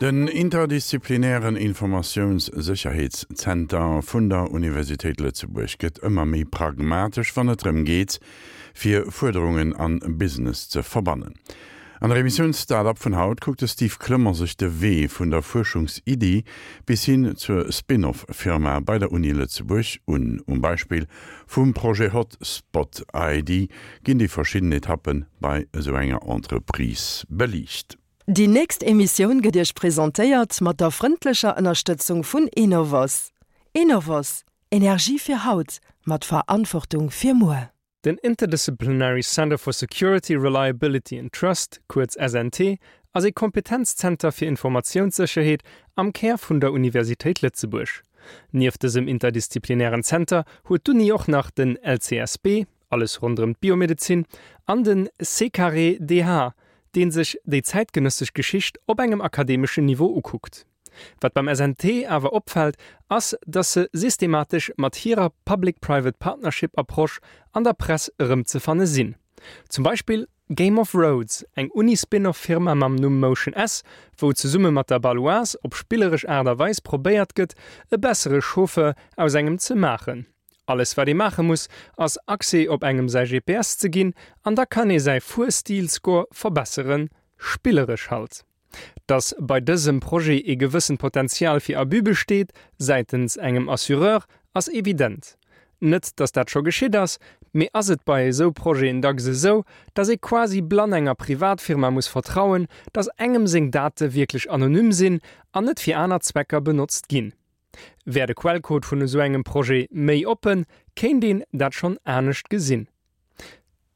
Den interdisziplinären Informatiounssécherheetszenter vun der Universitéit Lëtzebuerg gëtt ëmmer méi pragmatesch, wann et drëm geet, fir Fuerderungen an Business ze verbannen. An der Emissioun Start-up vun haut kuckt de Steve Clement sech de Wee vun der Fuerschungsiddi bis hin zur Spin-off-Firma bei der Uni Lëtzebuerg un. Um Beispill vum Projet Hotspot ID ginn déi verschidden Etappe bei esou enger Entreprise beliicht. Déi nächst Emissioun gëtt Iech presentéiert mat der frëndlecher Ënnerstëtzung vun Enovos. Enovos, Energie fir haut, mat Verantwortung fir muer. Den Interdisciplinary Center for Security, Reliability and Trust, kuerz SNT, ass ee Kompetenzzenter fir Informatiounssécherheet am Kär vun der Universitéit Lëtzebuerg. Nieft dësem interdisziplinären Zenter huet d'Uni och nach den LCSB, alles ronderëm d'Biomedezin, an den C-carré-DH, dee sech déi zäitgenëssesch Geschicht op engem akademeschen Niveau ukuckt. Wat beim SNT awer opfält, ass, dass se systematesch mat hirer Public-Private Partnership Approche an der Press erëmzefanne sinn. Zum Beispill Game of Roads, eng Uni-Spin-off Firma mam Numm Motion S, wou zesumme mat der Baloise op spilleresch Aart a Weis probéiert gëtt, e bessere Chauffeur aus engem ze maachen. Alles wat ee maache muss, ass Accès op engem säi GPS ze ginn an da kann ee säi Fuerstil-Score verbesseren. Spilleresch halt. Dass bei dësem Projet ee gewëssent Potenzial fir Abus besteet säitens engem Assureur, ass evident. Net, dass dat scho geschitt ass, mee ass et bei esou Projeten dacks esou, dass ee quasi blann enger Privatfirma muss vertrauen, dass engem seng Date wierklech anonym sinn an net fir aner Zwecker benotzt ginn? Wär de Quellcode vun esou engem Projet méi oppen, kéint een dat schonn anescht gesinn.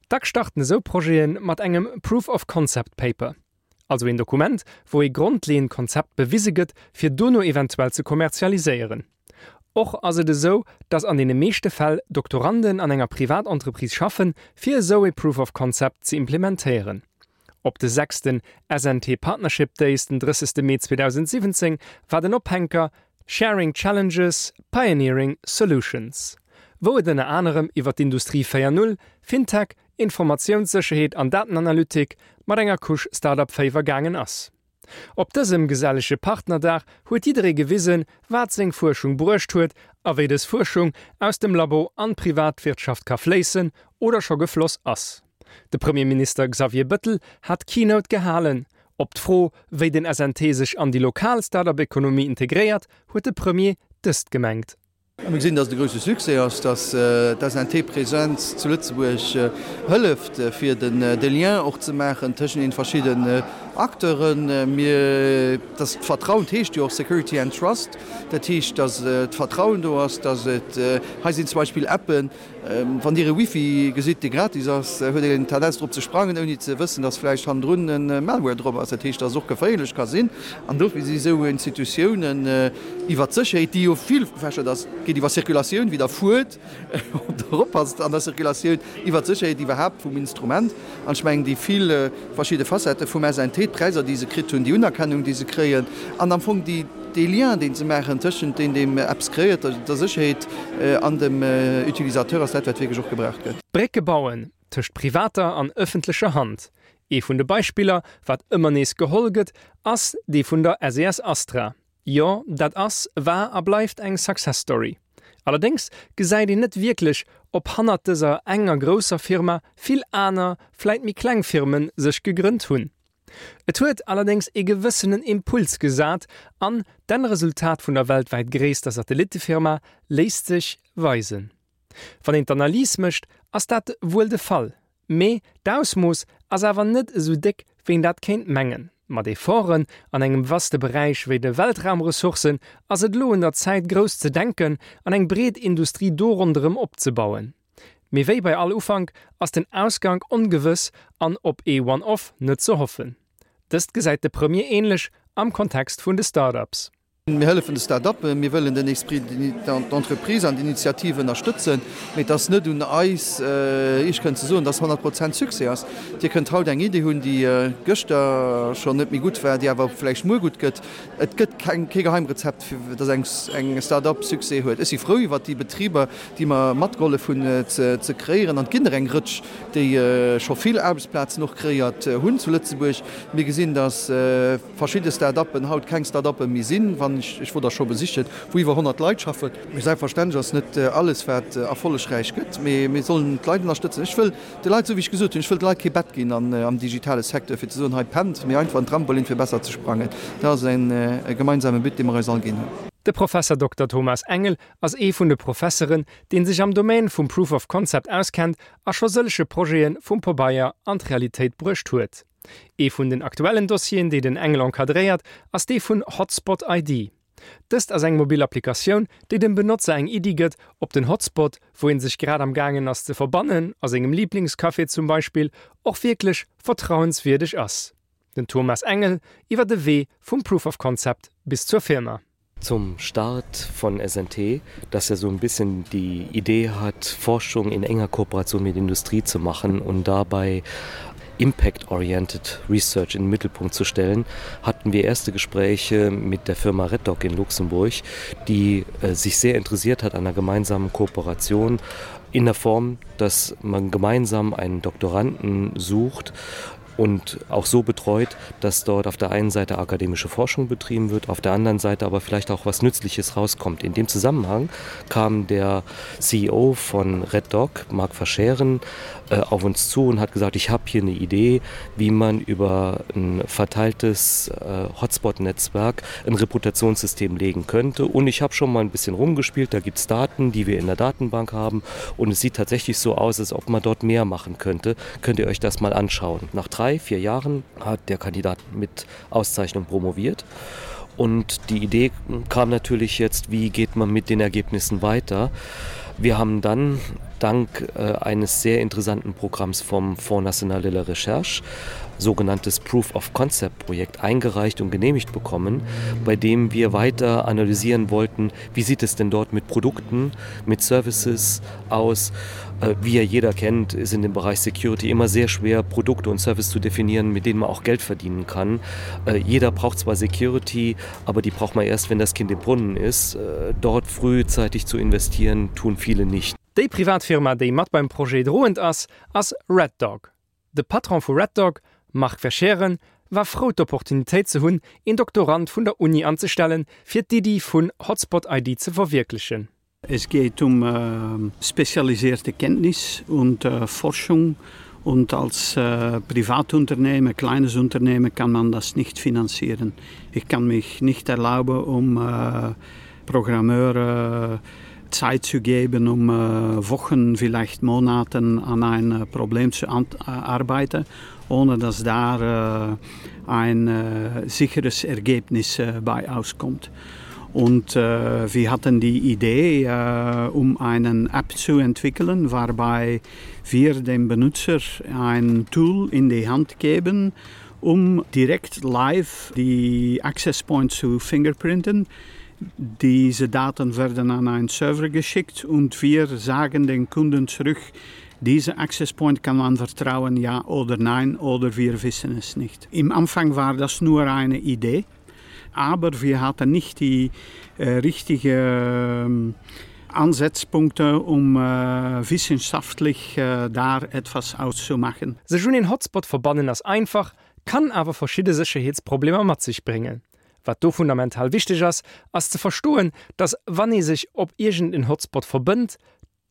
Dack starten esou Projete mat engem Proof of Concept Paper, also een Dokument, wou ee grondleeënd Konzept bewise gëtt, fir dono eventuell ze kommerzialiséieren. Och ass et esou, datt an deene meeschte Fäll Doktoranden an enger Privatentreprise schaffen, fir esou ee Proof of Concept ze implementéieren. Op de sechsten SNT Partnership Days den 30 Mee 2017 war den Ophänker Sharing Challenges, Pioneering Solutions, wou et ënner anerem iwwer d'Industrie 4 Null, Fintech, Informatiounssécherheet an Datenanalytik mat enger Couche Start-up-Féiwer gaangen ass. Op dësem gesellege Partnerdag huet jidderee gewisen, wat seng Fuerschung bruecht huet a wéi dës Fuerschung aus dem Labo an d'Privatwirtschaft ka fléissen oder scho gefloss ass. De Premierminister Xavier Bëttel hat d'Keynote gehalen. Op d'Fro, wéi den SNT sech an déi lokal Start-up-Ekonomie integréiert, huet de Premier dëst gemengt. Mir gesinn, datt et e grousse Succès ass, datt d'SNT-Presenz zu Lëtzebuerg hëlleft, fir de Lien och ze maachen tëschent den verschidden Acteuren. Mir, datt d'Vertrauen, dat heescht jo och Security and Trust, dat heescht, datt d'Vertrauen do ass, datt et, hei sinn zum Beispill Appen, Wann Dir e Wifi gesitt, dee gratis ass, huet een Tendenz drop ze sprangen, ouni ze wëssen, dass vläicht hannendrun e Malware drop ass. Dat heescht, dass et och geféierlech ka sinn. An dofir si sou Institutiounen iwwer d'Sécherheet, déi jo vill gefächert ass, geet iwwer Circulatioun, wéi Der fuert, ob Der oppasst an der Circulatioun, iwwer d'Sécherheet iwwerhaapt vum Instrument. An ech mengen, déi vill verschidde Facettë vum SNT, d'Präisser, déi se kritt hunn, déi Unerkennung, déi se kréien, an am Fong déi, dee Lien, deen se maachen tëschent deen, deem eppes kreéiert, der Sécherheet an dem Utilisateur, ass dat, wat wierklech och gebraucht gëtt. Brécke bauen tëscht privater an ëffentlecher Hand. Ee vun de Beispiller, wat ëmmer nees geholl gëtt, ass dee vun der SES Astra. Jo, dat ass, war a bleift eng Success Story. Allerdéngs gesäit een net wierklech, ob hannert dëser enger grousser Firma vill aner, vläit méi kleng Firmen sech gegrënnt hunn. Et huet allerdéngs ee gewëssenen Impuls gesat an d'Ennresultat vun der weltwäit gréisster Satellittefirma léisst sech weisen. Wann een d'Analys mécht, ass dat wuel de Fall, mee d'Ausmooss ass awer net esou déck, wéi een dat kéint mengen. Mat Efforten an engem vaste Beräich wéi de Weltraumressourcen ass et elo un der Zäit grouss ze denken an eng breet Industrie do ronderëm opzebauen. Mee wéi bei all Ufank ass den Ausgank ongewëss an op ee One-Off net ze hoffen. Dëst gesäit de Premier änlech am Kontext vun de Start-ups. Mir hëllefen de Start-uppen, mir wëllen den Esprit d'entreprise an d'Initiative ënnerstëtzen, mee et ass net un eis, Iech kënnen ze soen, dass 100 Prozent Succès ass. Dir kënnt haut eng Idee hunn, déi gëschter schonn net méi gutt war, déi awer vläicht muer gutt gëtt. Et gëtt keng, kee Geheimrezept, fir dass eng, eng Start-up Succès huet. Ech si frou iwwert déi Betriber, déi mer matgehollef hunn ze kreéieren. An et ginn der eng Rëtsch, déi scho vill Aarbechtsplazen och kreéiert hunn zu Lëtzebuerg. Mir gesinn, dass. Verschidde Start-uppen haut keng Start-uppe méi sinn, wann ech, ech wor der scho besichen, wou iwwer 100 Leit schaffen. Mee selbstverständlech ass net alles, wat erfollegräich gëtt, mee mir sollen d'Leit ënnerstëtzen. Ech wëll de Leit, esou wéi ech gesot hunn, ech wëll de Leit kee Bett ginn am digitale Secteur, fir ze soen, hei pennt, mee einfach en Trampolin, fir besser ze sprangen. Dat ass e gemeinsame But, dee mer eis all ginn hunn. De Professer Dokter Thomas Engel ass ee vun de Professeren, dee sech am Domaine vum Proof of Concept auskennt a scho sëllege Projete vum Pabeier an d'Realitéit bruecht huet. Ee vun den aktuellen Dossieren, déi den Engel encadréiert, ass dee vun Hotspot ID. Dëst ass eng mobil Applikatioun, déi dem Benotzer eng Iddi gëtt, ob den Hotspot, wou ee sech grad am gaangen ass ze verbannen, a sengem Liblingscafé zum Beispill, och wierklech vertrauenswierdeg ass. Den Thomas Engel iwwer de Wee vum Proof of Concept bis zur Firma. Zum Start von SNT, dass er so ein bisschen die Idee hat, Forschung in enger Kooperation mit Industrie zu machen und dabei impact-oriented Research in den Mittelpunkt zu stellen, hatten wir erste Gespräche mit der Firma Reddock in Luxemburg, die äh, sich sehr interessiert hat an einer gemeinsamen Kooperation in der Form, dass man gemeinsam einen Doktoranden sucht und auch so betreut, dass dort auf der einen Seite akademische Forschung betrieben wird, auf der anderen Seite aber vielleicht auch was Nützliches rauskommt. In dem Zusammenhang kam der CEO von Red Dog, Marc Verscheren, äh, auf uns zu und hat gesagt, ich habe hier eine Idee, wie man über ein verteiltes äh, Hotspot-Netzwerk ein Reputationssystem legen könnte. Und ich habe schon mal ein bisschen rumgespielt, da gibt es Daten, die wir in der Datenbank haben und es sieht tatsächlich so aus, als ob man dort mehr machen könnte. Könnt ihr euch das mal anschauen. Nach drei, vier Jahren hat der Kandidat mit Auszeichnung promoviert. Und die Idee kam natürlich jetzt, wie geht man mit den Ergebnissen weiter? Wir haben dann dank äh, eines sehr interessanten Programms vom Fonds National de la Recherche sogenanntes Proof of Concept Projekt eingereicht und genehmigt bekommen, bei dem wir weiter analysieren wollten, wie sieht es denn dort mit Produkten, mit Services aus. Äh, wie ja jeder kennt, ist in dem Bereich Security immer sehr schwer, Produkte und Services zu definieren, mit denen man auch Geld verdienen kann. Äh, jeder braucht zwar Security, aber die braucht man erst, wenn das Kind im Brunnen ist. Äh, dort frühzeitig zu investieren, tun viele nicht. Déi privat Firma, déi mat beim Projet droend ass, ass Red Dog. De Patron vu Red Dog, Marc Verschaeren, war frou d'Opportunitéit ze hunn, een Doktorand vun der Uni anzestellen, fir d'Iddi vun Hotspot ID ze verwierklechen. Es geht um äh, spezialisierte Kenntnis und äh, Forschung und als äh, Privatunternehmen, kleines Unternehmen kann man das nicht finanzieren. Ich kann mich nicht erlauben, um äh, Programmeure äh, Zeit zu geben, um äh, Wochen, vielleicht Monaten an ein äh, Problem zu äh, arbeiten, ohne dass da äh, ein äh, sicheres Ergebnis äh, bei auskommt. Und äh, wir hatten die Idee, äh, um einen App zu entwickeln, wobei wir dem Benutzer ein Tool in die Hand geben, um direkt live die Access Point zu fingerprinten. Diese Daten werden an einen Server geschickt und wir sagen den Kunden zurück, diese Access Point kann man vertrauen, ja oder nein, oder wir wissen es nicht. Im Anfang war das nur eine Idee, aber wir hatten nicht die äh, richtige äh, Ansatzpunkte, um äh, wissenschaftlich äh, da etwas auszumachen. Sech un een Hotspot verbannen ass einfach, kann awer verschidde Sécherheetsproblemer mat sech bréngen. Wat do fundamental wichteg ass, ass ze verstoen, dass wann ee sech op iergend en Hotspot verbënnt,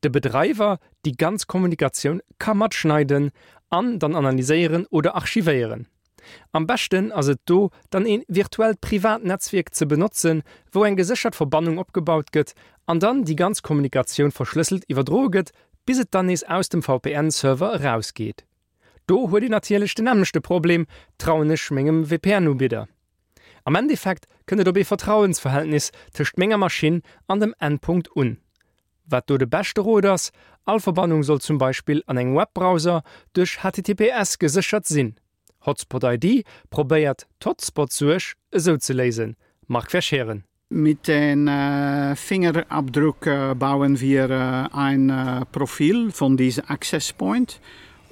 de Bedreiwer déi ganz Kommunikatioun ka matschneiden an dann analyséieren oder archivéieren. Am beschten ass et do dann een virtuellt privat Netzwierk ze benotzen, wou eng geséchert Verbannung opgebaut gëtt an dann déi ganz Kommunikatioun verschlësselt iwwerdroe gëtt, bis et dann nees aus dem VPN-Server erausgeet. Do huet een natierlech den nämmlechte Problem, trauen ech mengem VPN-Ubidder? Am Endeffekt kënnt et op ee Vertrauensverhältnis tëscht menger Maschinn an dem Endpunkt un. Wat do de beschte Rot ass, all Verbannung soll zum Beispill an engem Webbrowser duerch HTTPS geséchert sinn. Hotspot ID probéiert d'Hotspot-Suerg esou ze léisen. Marc Verscheren. Mit den äh, Fingerabdruck äh, bauen wir äh, ein äh, Profil von diesem Access Point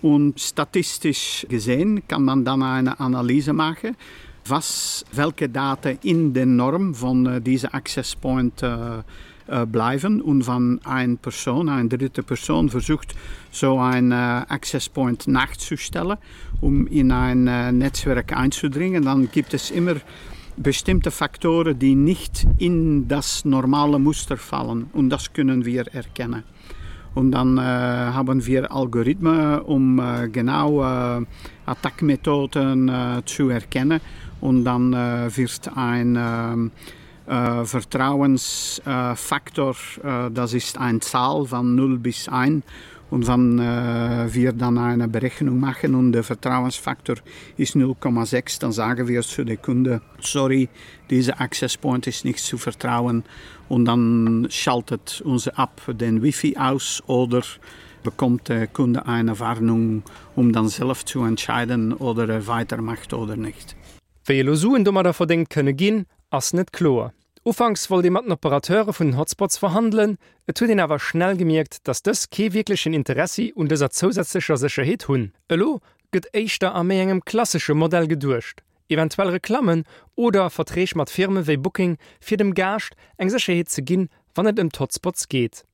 und statistisch gesehen kann man dann eine Analyse machen, was welche Daten in den Norm von äh, diesem Access Point äh, äh, bleiben und wann eine Person, eine dritte Person versucht, so ein äh, Access Point nachzustellen, um in ein äh, Netzwerk einzudringen, dann gibt es immer bestimmte Faktoren, die nicht in das normale Muster fallen und das können wir erkennen. Und dann äh, haben wir Algorithmen, um äh, genau äh, Attackmethoden äh, zu erkennen und dann äh, wird ein äh, äh, Vertrauensfaktor, äh, das ist eine Zahl von 0 bis 1 und wann äh, wir dann eine Berechnung machen und der Vertrauensfaktor ist 0,6, dann sagen wir zu der Kunde sorry, dieser Access Point ist nicht zu vertrauen und dann schaltet unsere App den Wifi aus oder bekommt der Kunde eine Warnung, um dann selbst zu entscheiden oder er weitermacht oder nicht. Wéi elo Suen domadder verdéngt kënne ginn, ass net kloer. Ufanks wollt ee mat den Operateure vun den Hotspots verhandelen, et huet een awer schnell gemierkt, datt dës kee wierklechen Interessi un dëser zousätzlecher Sécherheet hunn. Elo gëtt éischter a méi engem klassesche Modell geduecht, eventuell Reklammen oder Verträg mat Firme wéi Booking, fir dem Gaascht eng Sécherheet ze ginn, wann et ëm d'Hotspots geet.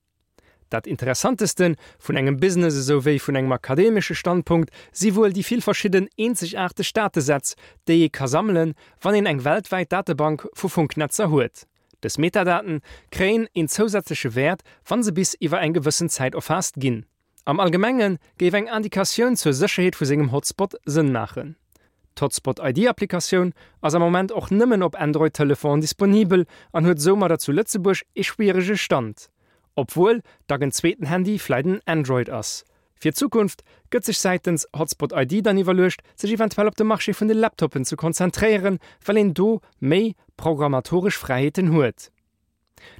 Dat Interessanteste vun engem Business esou wéi vun engem akademesche Standpunkt si wuel déi vill verschidden eenzegaarteg Datesätz, déi ee ka sammelen, wann een eng weltwäit Datebank vu Funknetzer huet. Dës Metadaten kréien een zousätzleche Wäert, wa se bis iwwer eng gewëssen Zäit erfaasst ginn. Am Allgemenge géif eng Indikatioun zur Sécherheet vu sengem Hotspot Sënn maachen. D'Hotspot ID-Applikatioun ass am Moment och nëmmen op Android-Telefonen disponibel an huet soumadder zu Lëtzebuerg ee schwierege Stand, obwuel dach en zweeten Handy vläit en Android ass. Fir d'Zukunft gëtt sech säitens Hotspot ID dann iwwerluecht, sech eventuell op de Marché vun de Laptoppen ze konzentréieren, well een do méi programmatoresch Fräiheeten huet.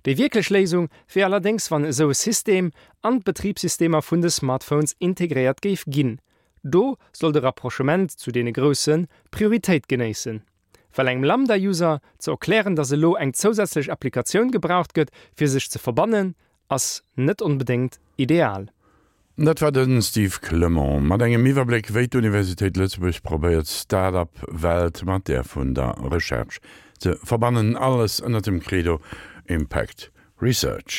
Déi wierklech Léisung wier allerdéngs wann esou e System an d'Betribssystemer vun de Smartphones integréiert géif ginn. Do soll de Rapprochement zu deene Grousse Prioritéit genéissen. Well engem Lambda-User ze erklären, dass elo eng zousätzlech Applikatioun gebraucht gëtt fir sech ze verbannen, ass net onbedéngt ideal. Dat war de Steve Clement mat engem Iwwerbléck, wéi d'Universitéit Lëtzebuerg probéiert, d'Start-up-Welt mat där vun der Recherche ze verbannen. Alles ënnert dem Credo Impact Research.